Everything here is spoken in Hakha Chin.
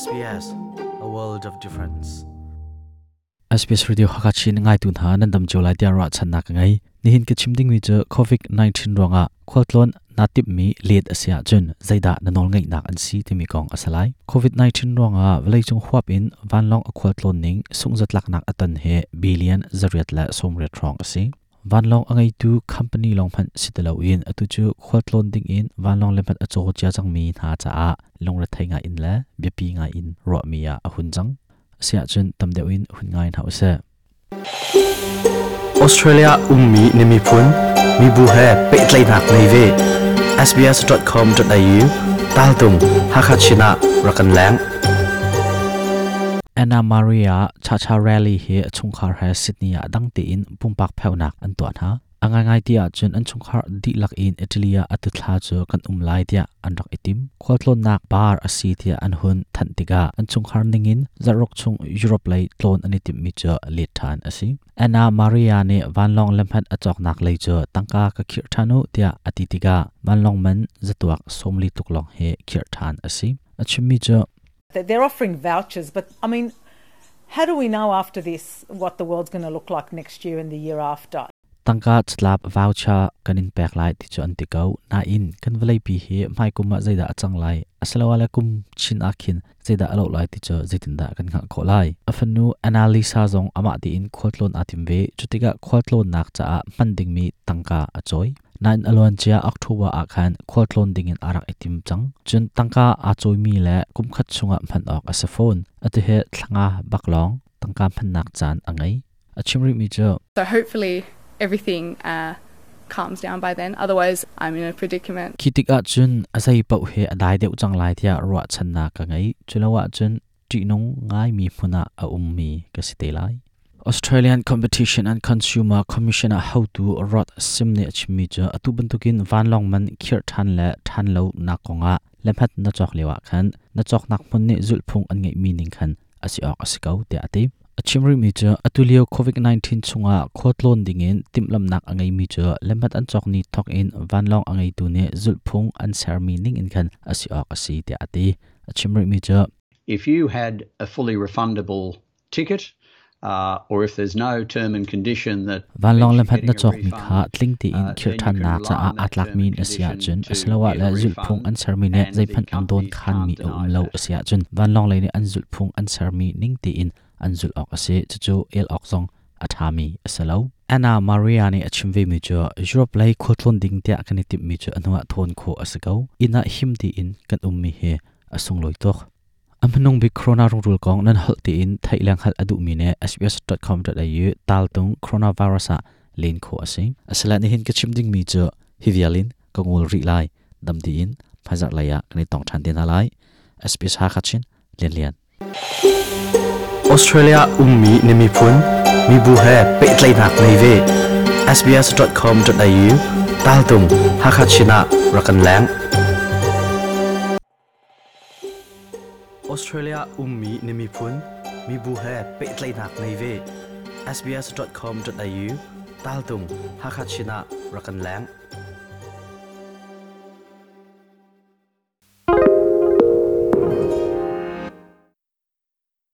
SBS, a world of difference. SBS Radio Hakachin ngaitu hna nan dam cio lai tiah ruahchannak ka ngei. Nihin ka chim dingmi cu COVID-19 ruangah khualtlawn naa timhmi let a si ahcun zeidah na nawlngeihnak an si timi kong a si lai. COVID-19 ruangah vawleicung huap in vanlawng a khualtlawn ning sungzatlaknak a ton hi billion 8 le 80 hrawng a si. Vanlawng a ngeitu company lawng hmanh si ti loin atu cu khualtlawn ding in vanlawng le hmanh a caw cia cangmi hna caah lungrethei ngai in le biapi ngai in ruahmi ah a hun cang. Asiahcun tam deuh in hun ngai hna usih. Australia ummi na miphun mibu he pehtlaihnak ngei ve. sbs.com.au taltung Hakha Chin ah rak kan leng. Anna Maria Chacharelli hi a chungkhar he Sydney ah dang tein pumpak pheunak an tuah hna. A ngaingai ti ahcun an chungkhar dihlak in Italy ah atu thla cu kan um lai tiah an rak i tim. Khualtlawnnak bar a si tiah an hun thanh tikah an chungkhar ningin zarhruk chung Europe lei tlawn an i timhmi cu let ṭhan a si. Anna Maria nih vanlawng lamhat a cawknak lei cu tangka ka khirh ṭhan u tiah a ti tikah vanlawng man zatuak 40 tluk lawng hi khirh ṭhan a si. A chimmi cu They're offering vouchers, but I mean, how do we know after this what the world's going to look like next year and the year after? Tangka catlap voucher kan in pek lai ti cu an ti ko. Nain kan vawleipi hi hmaikum ah zeidah a cang lai asiloah kum chin ah khin zeidah a loh lai ti cu zeitindah kan hngalh khawh lai. A fanu Annalisa zong amah tiin khualtlawn aa tim ve. Cutikah khualtlawnnak caah hman dingmi tangka a cawi. Nain a luancia October ah khan khualtlawn dingin aa rak i tim cang. Cun tangka aa cawimi le kumkhat chungah hman awk a si fawn. Atu hi thlanga bak lawng tangka hmannak caan a ngei. A chim rihmi cu So hopefully everything calms down by then. Otherwise, I'm in a predicament. Khi tikah cun a zei paoh hi a dai deuh cang lai tiah ruahchannak ka ngei. Culo ahcun ṭihnung ngaimi hmun ah a ummi ka si te lai. Australian Competition and Consumer Commission ah hotu Rod Sim nih a chimmi cu atu bantukin vanlawng man khirh ṭhan le ṭhan lo nak kongah lemhat na cawk lio ah khan na cawknak hmun nih zulhphung an ngeihmi ning khan a si awk a si ko tiah a ti. A chim rihmi cu atu lio COVID-19 chungah khualtlawn dingin timhlamhnak a ngeimi cu lemhat an cawk ni thawk in vanlawng a ngeitu nih zulhphung an sermi ning in khan a si awk a si tiah a ti. A chim rihmi cu If you had a fully refundable ticket, or if there's no term and condition that Vanlawng lamhat na cawkmi kha tling tein khirh ṭhannak caah aa tlakmi na si ahcun asiloah le zulhphung an sermi nih zeihmanh an dawn khanmi a um lo a si ahcun vanlawng lei nih an zulhphung an sermi ning tein an zulh awk a si. Cucu el awk zong a ṭhami a si lo. Anna Maria nih a chim vemi cu Europe lei khualtlawn ding tiah kan i timhmi cu a hnuah thawn khawh a si ko. Inn ah him tein kan ummi hi a sunglawi tuk. A hmanung bik corona rungrul kong nan holh tiin theih le hngalh a duhmi nih sbs.com.au taltung coronavirus ah len khawh a si. Asile nihin ka chim dingmi cu hi vial in ka ngol rih lai. Dam tiin hmaizarh lei ah kan i tong ṭhan te hna lai. SBS Hakha Chin Lian Lian. Australia ummi na miphun mibu he pehtlaihnak ngei ve. sbs.com.au taltung Hakha Chin ah rak kan leng. Australia ummi na miphun mibu he pehtlaihnak ngei ve. sbs.com.au taltung Hakha Chin ah rak kan leng.